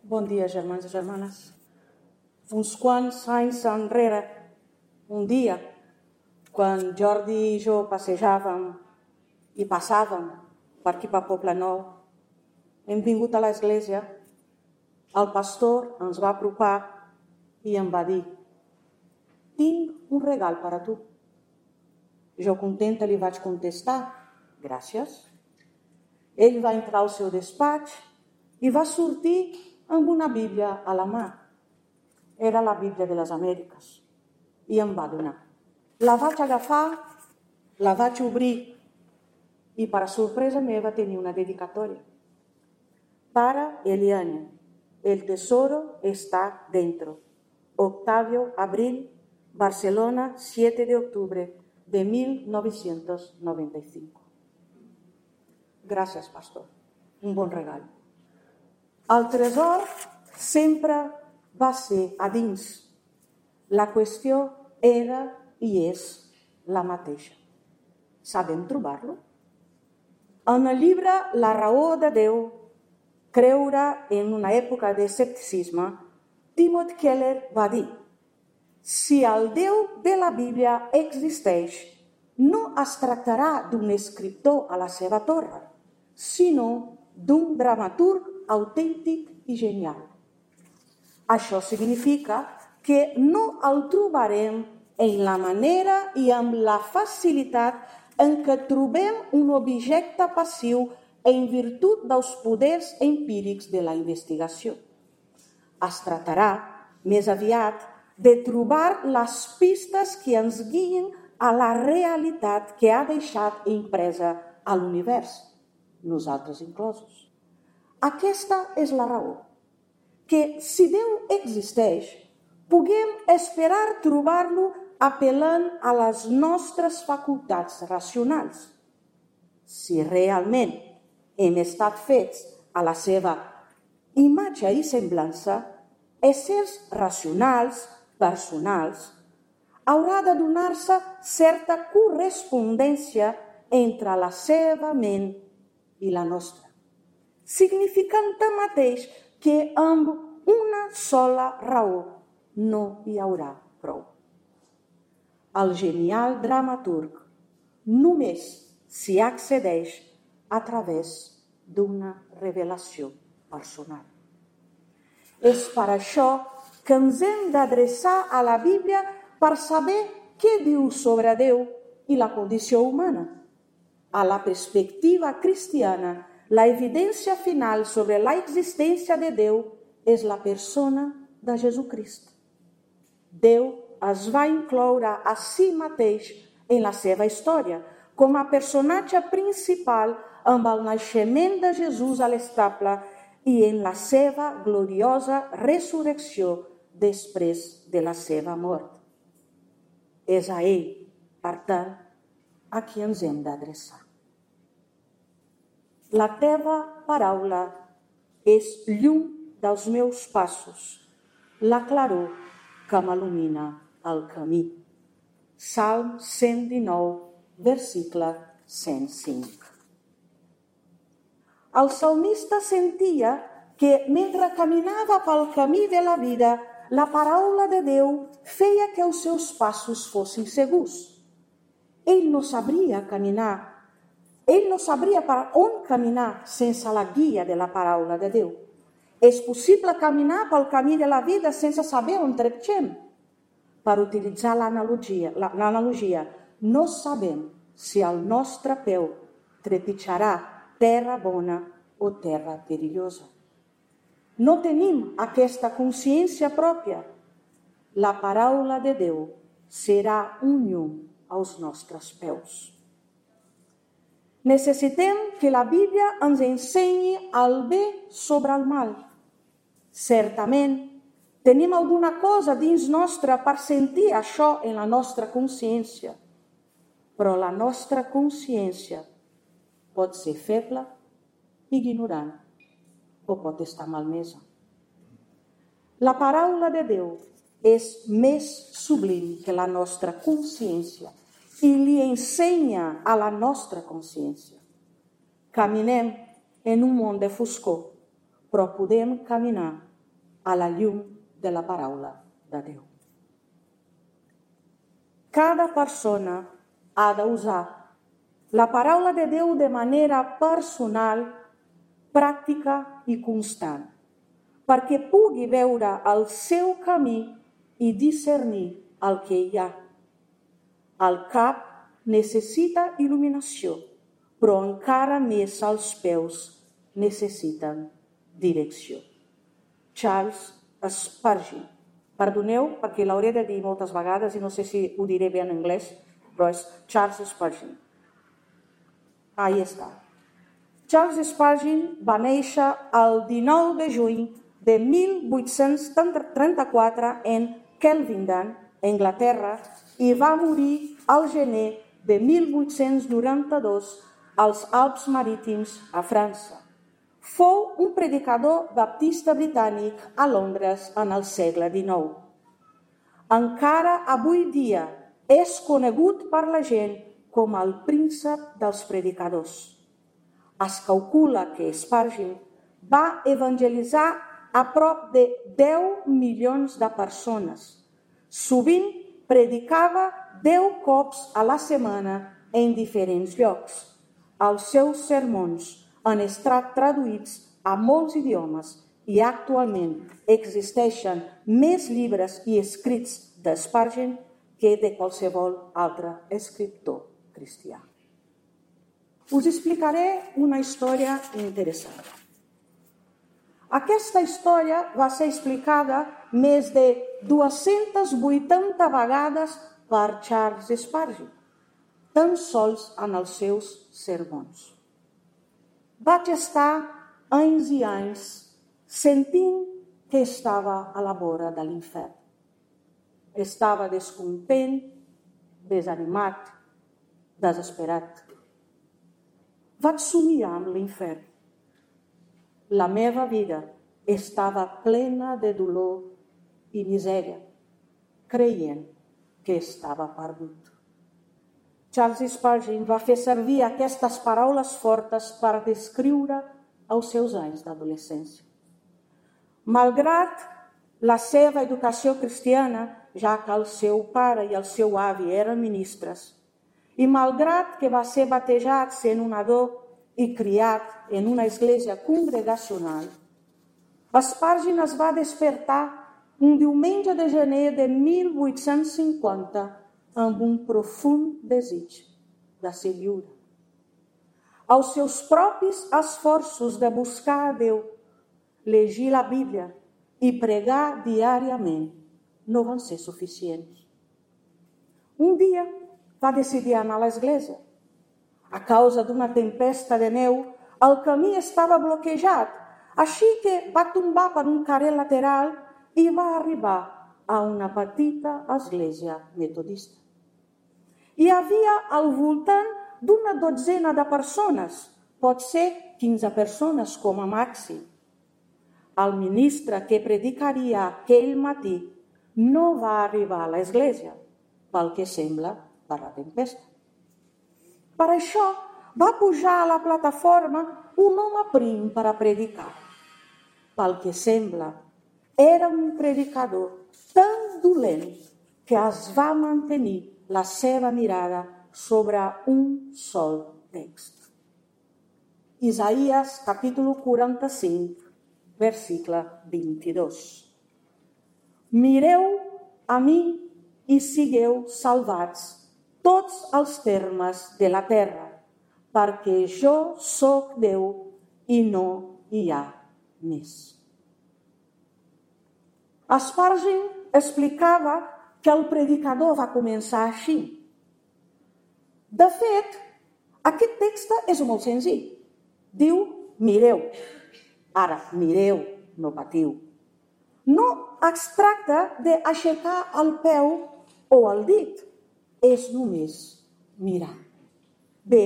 Bon dia, germans i germanes. Uns quants anys enrere, un dia, quan Jordi i jo passejàvem i passàvem per aquí per Poblenou, hem vingut a l'església, el pastor ens va apropar i em va dir: tinc un regal per a tu. Jo contenta li vaig contestar: gràcies. Ell va entrar al seu despatx i va sortir amb una Bíblia a la mà. Era la Bíblia de les Amèriques i em va donar. La vaig agafar, la vaig obrir i, per a sorpresa meva, tenia una dedicatòria. Para Eliane, el tesoro está dentro. Octavio Abril, Barcelona, 7 de octubre de 1995. Gràcies, pastor. Un bon regal. El tresor sempre va ser a dins. La qüestió era i és la mateixa. Sabem trobar-lo? En el llibre La raó de Déu, creure en una època de escepticisme, Timothy Keller va dir: si el Déu de la Bíblia existeix, no es tractarà d'un escriptor a la seva torre, sinó d'un dramaturg autèntic i genial. Això significa que no el trobarem en la manera i amb la facilitat en què trobem un objecte passiu en virtut dels poders empírics de la investigació. Es tractarà, més aviat, de trobar les pistes que ens guien a la realitat que ha deixat impresa a l'univers, nosaltres inclosos. Aquesta és la raó, que si Déu existeix, puguem esperar trobar-lo apel·lant a les nostres facultats racionals. Si realment hem estat fets a la seva imatge i semblança, éssers racionals, personals, haurà de donar-se certa correspondència entre la seva ment i la nostra, significant tanmateix que amb una sola raó no hi haurà prou. El genial dramaturg només s'hi accedeix a través d'una revelació personal. És per això que ens hem d'adreçar a la Bíblia per saber què diu sobre Déu i la condició humana. A la perspectiva cristiana, la evidència final sobre la existència de Déu és la persona de Jesucrist. Déu es va incloure a si mateix en la seva història com a personatge principal amb el naixement de Jesús a l'estable i en la seva gloriosa resurrecció després de la seva mort. És a ell, per tant, a qui ens hem d'adreçar. La teva paraula és llum dels meus passos, la claror que m'il·lumina el camí. Salm 119, versicle 105. El salmista sentia que mentre caminava pel camí de la vida, la paraula de Déu feia que els seus passos fossin segurs. Ell no sabria per on caminar sense la guia de la paraula de Déu. És possible caminar pel camí de la vida sense saber on trepitgem. Per utilitzar l'analogia, no sabem si el nostre peu trepitjarà terra bona o terra perillosa. No tenim aquesta consciència pròpia. La paraula de Déu serà un llum als nostres peus. Necessitem que la Bíblia ens ensenyi el bé sobre el mal. Certament, tenim alguna cosa dins nostre per sentir això en la nostra consciència, però la nostra consciència pot ser feble, ignorant o pot estar malmesa. La paraula de Déu és més sublim que la nostra consciència i li ensenya a la nostra consciència. Caminem en un món de foscor, però podem caminar a la llum de la paraula de Déu. Cada persona ha d'usar la paraula de Déu de manera personal, pràctica i constant, perquè pugui veure el seu camí i discernir el que hi ha. El cap necessita il·luminació, però encara més els peus necessiten direcció. Charles Spurgeon. Perdoneu, perquè l'hauré de dir moltes vegades i no sé si ho diré bé en anglès, però és Charles Spurgeon. Ahí està. Charles Spurgeon va néixer el 19 de juny de 1834 en Kelvindon, Anglaterra, i va morir al gener de 1892 als Alps Marítims a França. Fou un predicador baptista britànic a Londres en el segle XIX. Encara avui dia és conegut per la gent com el príncep dels predicadors. Es calcula que Spurgeon va evangelitzar a prop de 10 milions de persones. Sovint predicava 10 cops a la setmana en diferents llocs. Els seus sermons han estat traduïts a molts idiomes i actualment existeixen més llibres i escrits de Spurgeon que de qualsevol altre escriptor cristià. Us explicaré una història interessant. Aquesta història va ser explicada més de 280 vegades per Charles Spurgeon, tan sols en els seus sermons. Vaig estar anys i anys sentint que estava a la vora de l'infern. Estava descontent, desanimat, desesperat. Vaig somiar amb l'infern. La meva vida estava plena de dolor i misèria, creient que estava perdut. Charles Spurgeon va fer servir aquestes paraules fortes per descriure els seus anys d'adolescència. Malgrat la seva educació cristiana, ja que el seu pare i el seu avi eren ministres, i malgrat que va ser batejat sent un nadó i criat en una església congregacional, Spurgeon es va despertar un diumenge de gener de 1850 amb un profund desig de ser lliure. Els seus propis esforços de buscar a Déu, llegir la Bíblia i pregar diàriament no van ser suficients. Un dia va decidir anar a l'església. A causa d'una tempesta de neu, el camí estava bloquejat, així que va tombar per un carrer lateral i va arribar a una petita església metodista. Hi havia al voltant d'una dotzena de persones, pot ser 15 persones com a màxim. El ministre que predicaria aquell matí no va arribar a l'església, pel que sembla per la tempesta. Per això va pujar a la plataforma un home prim per a predicar. Pel que sembla, era un predicador tan dolent que es va mantenir la seva mirada sobre un sol text. Isaías, capítol 45, versicle 22. Mireu a mi i sigueu salvats tots els termes de la terra, perquè jo sóc Déu i no hi ha més. Spurgeon explicava que el predicador va començar així. De fet, aquest text és molt senzill. Diu, mireu. Ara, mireu, no patiu. No es tracta d'aixecar el peu o el dit. És només mirar. Bé,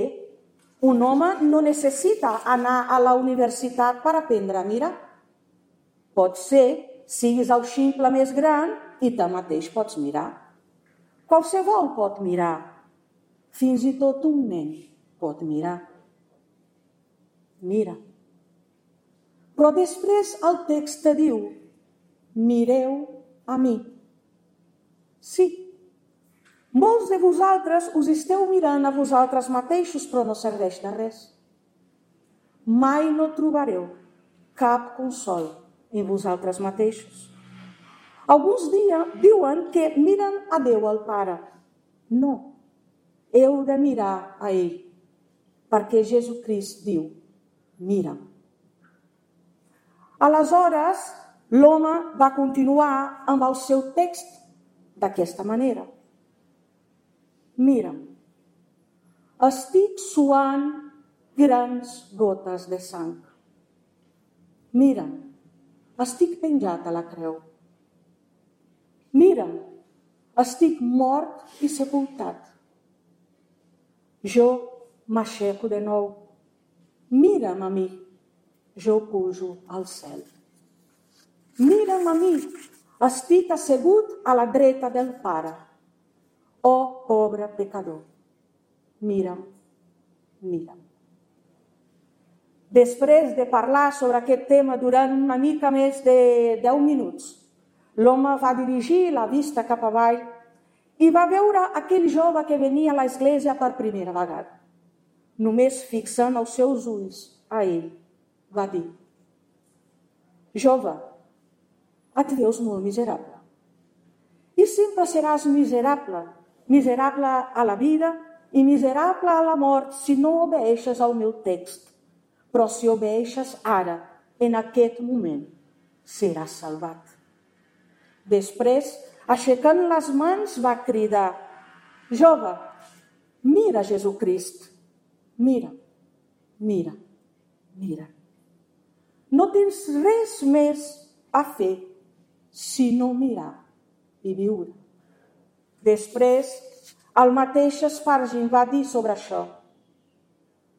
un home no necessita anar a la universitat per aprendre a mirar. Pot ser, siguis el ximple més gran i tanmateix pots mirar. Qualsevol pot mirar. Fins i tot un nen pot mirar. Mira. Però després el text diu, mireu a mi. Sí, molts de vosaltres us esteu mirant a vosaltres mateixos, però no serveix de res. Mai no trobareu cap consol en vosaltres mateixos. Alguns diuen que miren a Déu, el Pare. No, heu de mirar a ell, perquè Jesucrist diu, mira'm. Aleshores, l'home va continuar amb el seu text d'aquesta manera. Mira'm, estic suant grans gotes de sang. Mira'm, estic penjat a la creu. Mira'm, estic mort i sepultat. Jo m'aixeco de nou. Mira'm a mi, jo pujo al cel. Mira'm a mi, estic assegut a la dreta del Pare. Oh, pobre pecador, mira'm, mira'm. Després de parlar sobre aquest tema durant una mica més de 10 minuts, l'home va dirigir la vista cap avall i va veure aquell jove que venia a l'església per primera vegada. Només fixant els seus ulls a ell, va dir: jove, et veus molt miserable. I sempre seràs miserable, miserable a la vida i miserable a la mort si no obeeixes al meu text. Però si obeeixes ara, en aquest moment, seràs salvat. Després, aixecant les mans, va cridar: jove, mira Jesucrist, mira, mira, mira. No tens res més a fer sinó mirar i viure. Després, el mateix Spurgeon va dir sobre això: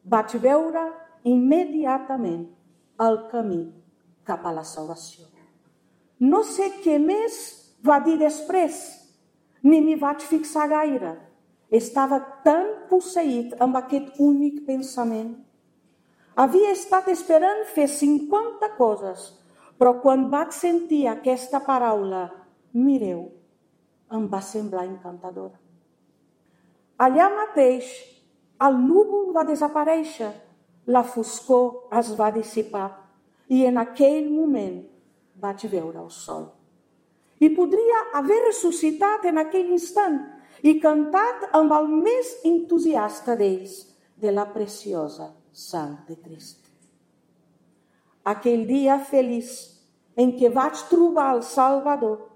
vaig veure immediatament el camí cap a la salvació. No sé què més va dir després, ni m'hi vaig fixar gaire. Estava tan posseït amb aquest únic pensament. Havia estat esperant fer 50 coses, però quan vaig sentir aquesta paraula, mireu, em va semblar encantadora. Allà mateix, el núvol va desaparèixer, la foscor es va dissipar i en aquell moment vaig veure el sol. I podria haver ressuscitat en aquell instant i cantat amb el més entusiasta d'ells de la preciosa sang de Crist. Aquell dia feliç en què vaig trobar el Salvador,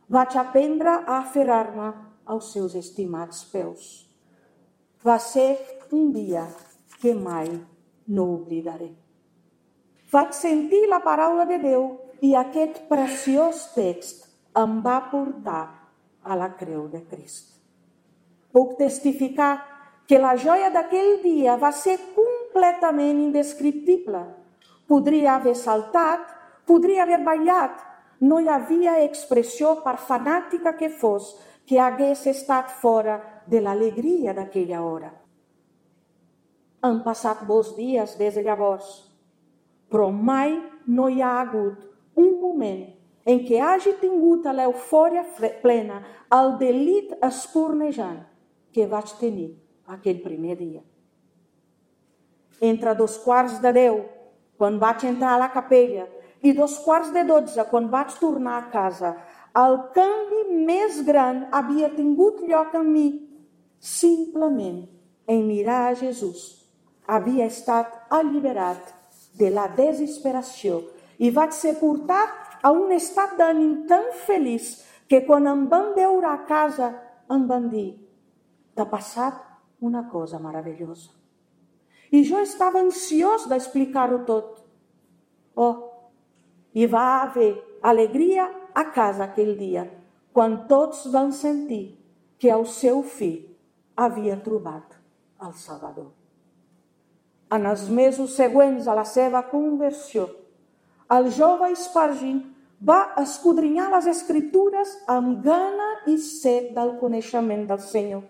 vaig aprendre a aferrar-me als seus estimats peus. Va ser un dia que mai no oblidaré. Vaig sentir la paraula de Déu i aquest preciós text em va portar a la creu de Crist. Puc testificar que la joia d'aquell dia va ser completament indescriptible. Podria haver saltat, podria haver ballat. No hi havia expressió, per fanàtica que fos, que hagués estat fora de l'alegria d'aquella hora. Han passat molts dies des de llavors, però mai no hi ha hagut un moment en què hagi tingut l'eufòria plena, el delit espurnejant que vaig tenir aquell primer dia. Entre 11:15, quan vaig entrar a la capella, i 11:45, quan vaig tornar a casa, el canvi més gran havia tingut lloc en mi, simplement en mirar a Jesús. Havia estat alliberat de la desesperació i vaig ser portat a un estat d'ànim tan feliç que quan em van veure a casa em van dir: t'ha passat una cosa meravellosa. I jo estava ansiós d'explicar-ho tot. Hi va haver alegria a casa aquell dia, quan tots van sentir que el seu fill havia trobat el Salvador. En els mesos següents a la seva conversió, el jove Spurgeon va escudrinyar les Escritures amb gana i set del coneixement del Senyor.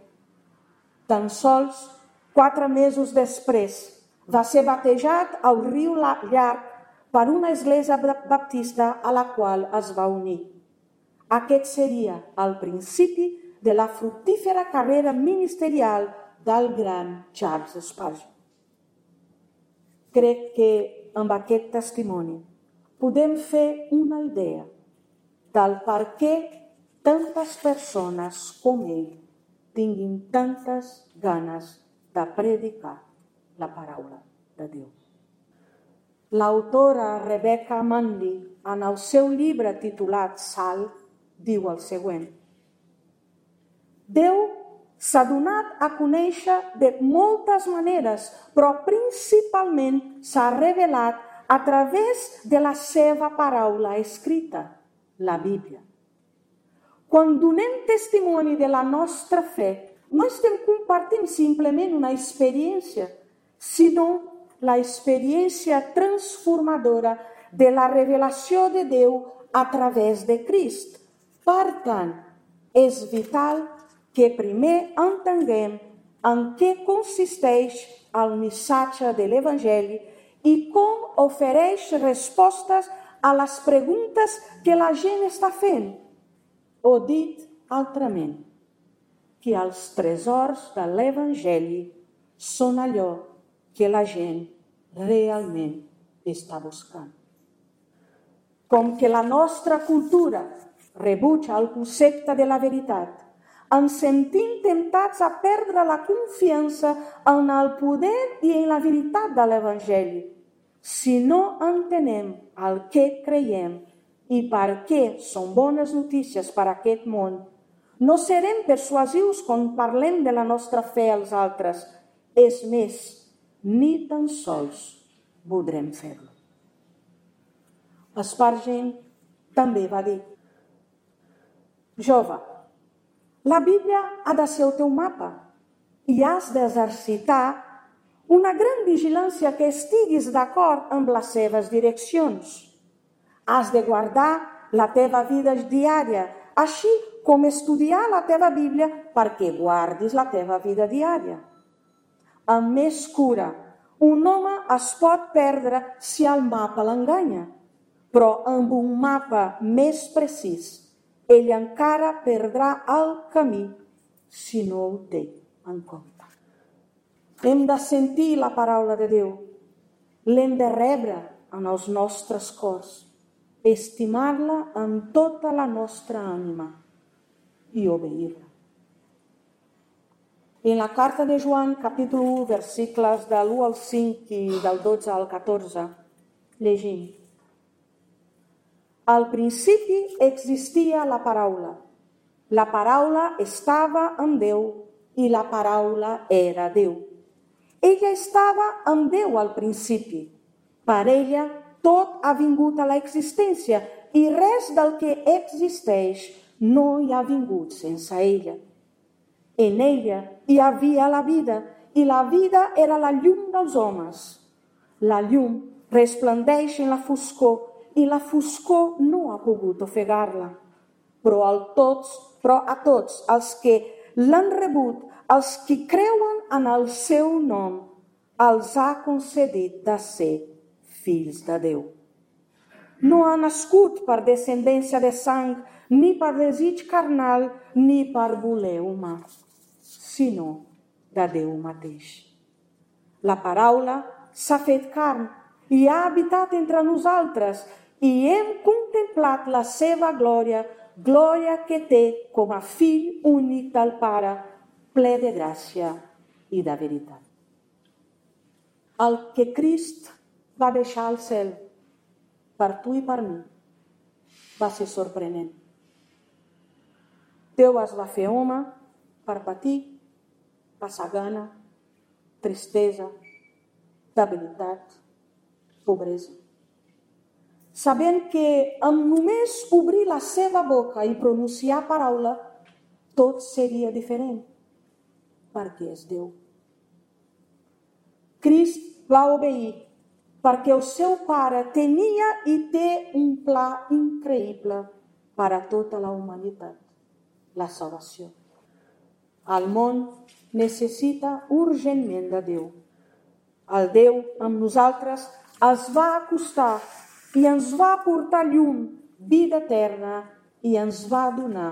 Tan sols 4 mesos després va ser batejat al riu Llarg per una església baptista a la qual es va unir. Aquest seria el principi de la fructífera carrera ministerial del gran Charles Spurgeon. Crec que amb aquest testimoni podem fer una idea del per què tantes persones com ell tinguin tantes ganes de predicar la paraula de Déu. L'autora Rebecca Mundy, en el seu llibre titulat Sal, diu el següent: Déu s'ha donat a conèixer de moltes maneres, però principalment s'ha revelat a través de la seva paraula escrita, la Bíblia. Quan donem testimoni de la nostra fe, no estem compartint simplement una experiència, sinó la experiència transformadora de la revelació de Déu a través de Crist. Per tant, és vital que primer entenguem en què consisteix el missatge de l'Evangeli i com ofereix respostes a les preguntes que la gent està fent. O dit altrament, que els tresors de l'Evangeli són allò que la gent realment està buscant. Com que la nostra cultura rebutja el concepte de la veritat, ens sentim temptats a perdre la confiança en el poder i en la veritat de l'Evangeli. Si no entenem el que creiem i per què són bones notícies per a aquest món, no serem persuasius quan parlem de la nostra fe als altres. És més, ni tan sols voldrem fer-lo. Spurgeon també va dir: Jove, la Bíblia ha de ser el teu mapa i has d'exercitar una gran vigilància que estiguis d'acord amb les seves direccions. Has de guardar la teva vida diària, així com estudiar la teva Bíblia perquè guardis la teva vida diària. Amb més cura, un home es pot perdre si el mapa l'enganya, però amb un mapa més precís, ell encara perdrà el camí si no ho té en compte. Hem de sentir la paraula de Déu, l'hem de rebre en els nostres cors, estimar-la amb tota la nostra ànima i obeir-la. En la carta de Joan, capítol 1, versículos de l'1 al 5 i del 12 al 14, llegim: Al principi existia la paraula. La paraula estava amb Déu i la paraula era Déu. Ella estava amb Déu al principi. Per ella tot ha vingut a l'existència i res del que existeix no hi ha vingut sense ella. En ella hi havia la vida i la vida era la llum dels homes. La llum resplendeix en la foscor i la foscor no ha pogut ofegar-la. Però a tots els que l'han rebut, els que creuen en el seu nom, els ha concedit de ser fills de Déu. No ha nascut per descendència de sang, ni per desig carnal, ni per voler humà, sinó de Déu mateix. La paraula s'ha fet carn i ha habitat entre nosaltres i hem contemplat la seva glòria, glòria que té com a fill únic del Pare, ple de gràcia i de veritat. El que Crist va deixar al cel per tu i per mi va ser sorprenent. Déu es va fer home per patir, passar gana, tristesa, debilitat, pobresa. Sabent que amb només obrir la seva boca i pronunciar paraula, tot seria diferent, perquè és Déu. Crist va obeir perquè el seu Pare tenia i té un pla increïble per a tota la humanitat, la salvació. El món necessita urgentment de Déu. El Déu amb nosaltres es va acostar i ens va portar llum, vida eterna, i ens va donar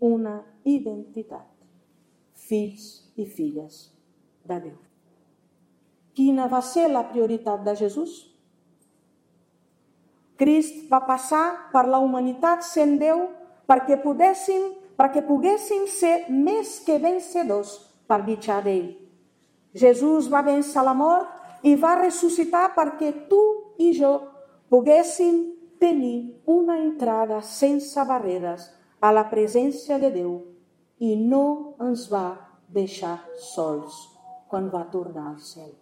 una identitat. Fills i filles de Déu. Quina va ser la prioritat de Jesús? Crist va passar per la humanitat sent Déu perquè poguéssim ser més que vencedors per mitjà d'ell. Jesús va vèncer la mort i va ressuscitar perquè tu i jo poguéssim tenir una entrada sense barreres a la presència de Déu i no ens va deixar sols quan va tornar al cel.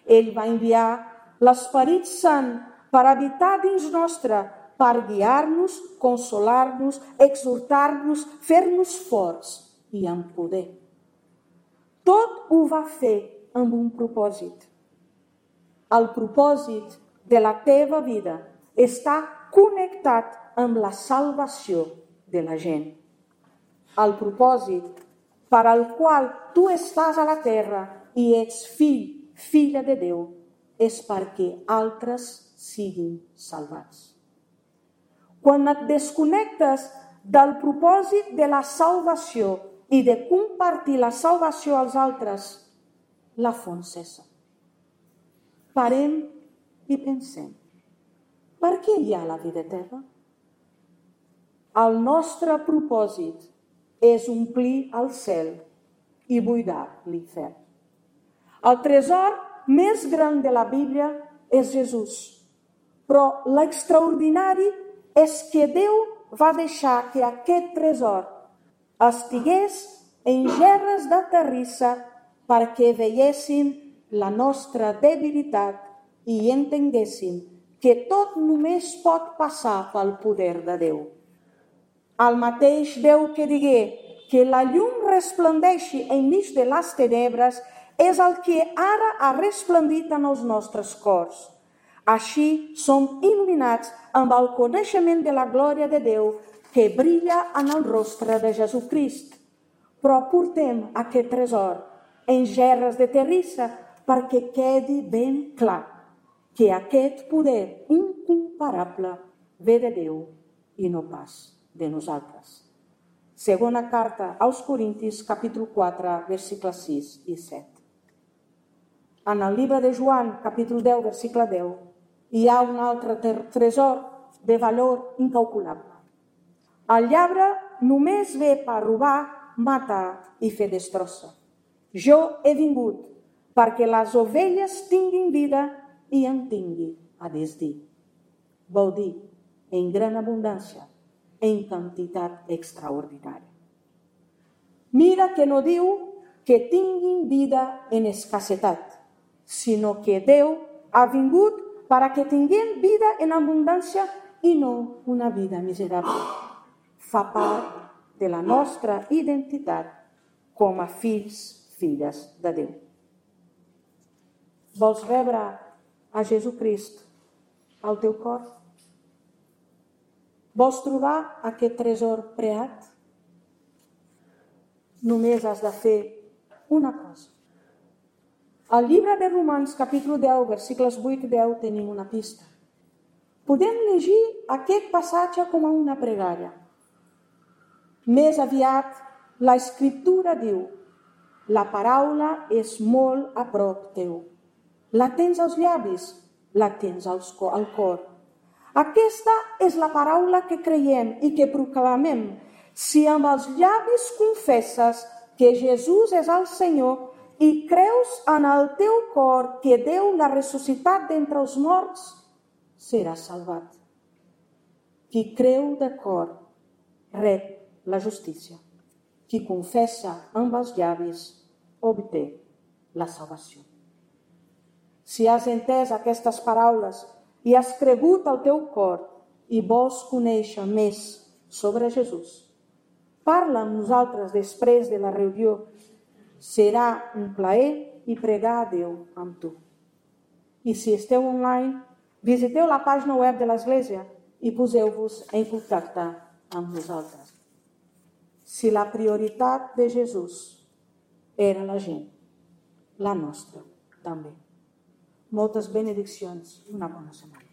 Ell va enviar l'Esperit Sant per habitar dins nostre, per guiar-nos, consolar-nos, exhortar-nos, fer-nos forts i amb poder. Tot ho va fer amb un propòsit. El propòsit de la teva vida està connectat amb la salvació de la gent. El propòsit per al qual tu estàs a la terra i ets fill, filla de Déu, és perquè altres siguin salvats. Quan et desconnectes del propòsit de la salvació i de compartir la salvació als altres, la font cessa. Parem i pensem, per què hi ha la vida eterna? El nostre propòsit és omplir el cel i buidar l'infern. El tresor més gran de la Bíblia és Jesús, però l'extraordinari és que Déu va deixar que aquest tresor estigués en gerres de terrissa perquè veiéssim la nostra debilitat i entenguéssim que tot només pot passar pel poder de Déu. El mateix Déu que digué que la llum resplendeixi enmig de les tenebres és el que ara ha resplendit en els nostres cors. Així som il·luminats amb el coneixement de la glòria de Déu que brilla en el rostre de Jesucrist. Però portem aquest tresor en gerres de terrissa perquè quedi ben clar que aquest poder incomparable ve de Déu i no pas de nosaltres. Segona carta als Corintis, capítol 4, versicles 6 i 7. En el llibre de Joan, capítol 10, versicle 10, hi ha un altre tresor de valor incalculable. El lladre només ve per robar, matar i fer destrossa. Jo he vingut perquè les ovelles tinguin vida i en tingui a desdir. Vol dir, en gran abundància, en quantitat extraordinària. Mira que no diu que tinguin vida en escassetat, sinó que Déu ha vingut per a que tinguin vida en abundància i no una vida miserable. Fa part de la nostra identitat com a fills, filles de Déu. Vols rebre a Jesucrist al teu cor? Vols trobar aquest tresor preat? Només has de fer una cosa. Al llibre de Romans, capítol 10, versicles 8 i 10, tenim una pista. Podem llegir aquest passatge com a una pregària. Més aviat, l'Escriptura diu: la paraula és molt a prop teu. La tens als llavis, la tens al cor. Aquesta és la paraula que creiem i que proclamem. Si amb els llavis confesses que Jesús és el Senyor i creus en el teu cor que Déu l'ha ressuscitat d'entre els morts, seràs salvat. Qui creu de cor rep la justícia. Qui confessa amb els llavis obté la salvació. Si has entès aquestes paraules i has cregut al teu cor i vols conèixer més sobre Jesús, parla amb nosaltres després de la reunió. Serà un plaer i pregar a Déu amb tu. I si esteu online, visiteu la pàgina web de l'Església i poseu-vos en contacte amb nosaltres. Si la prioritat de Jesús era la gent, la nostra també. Moltes benediccions i una bona setmana.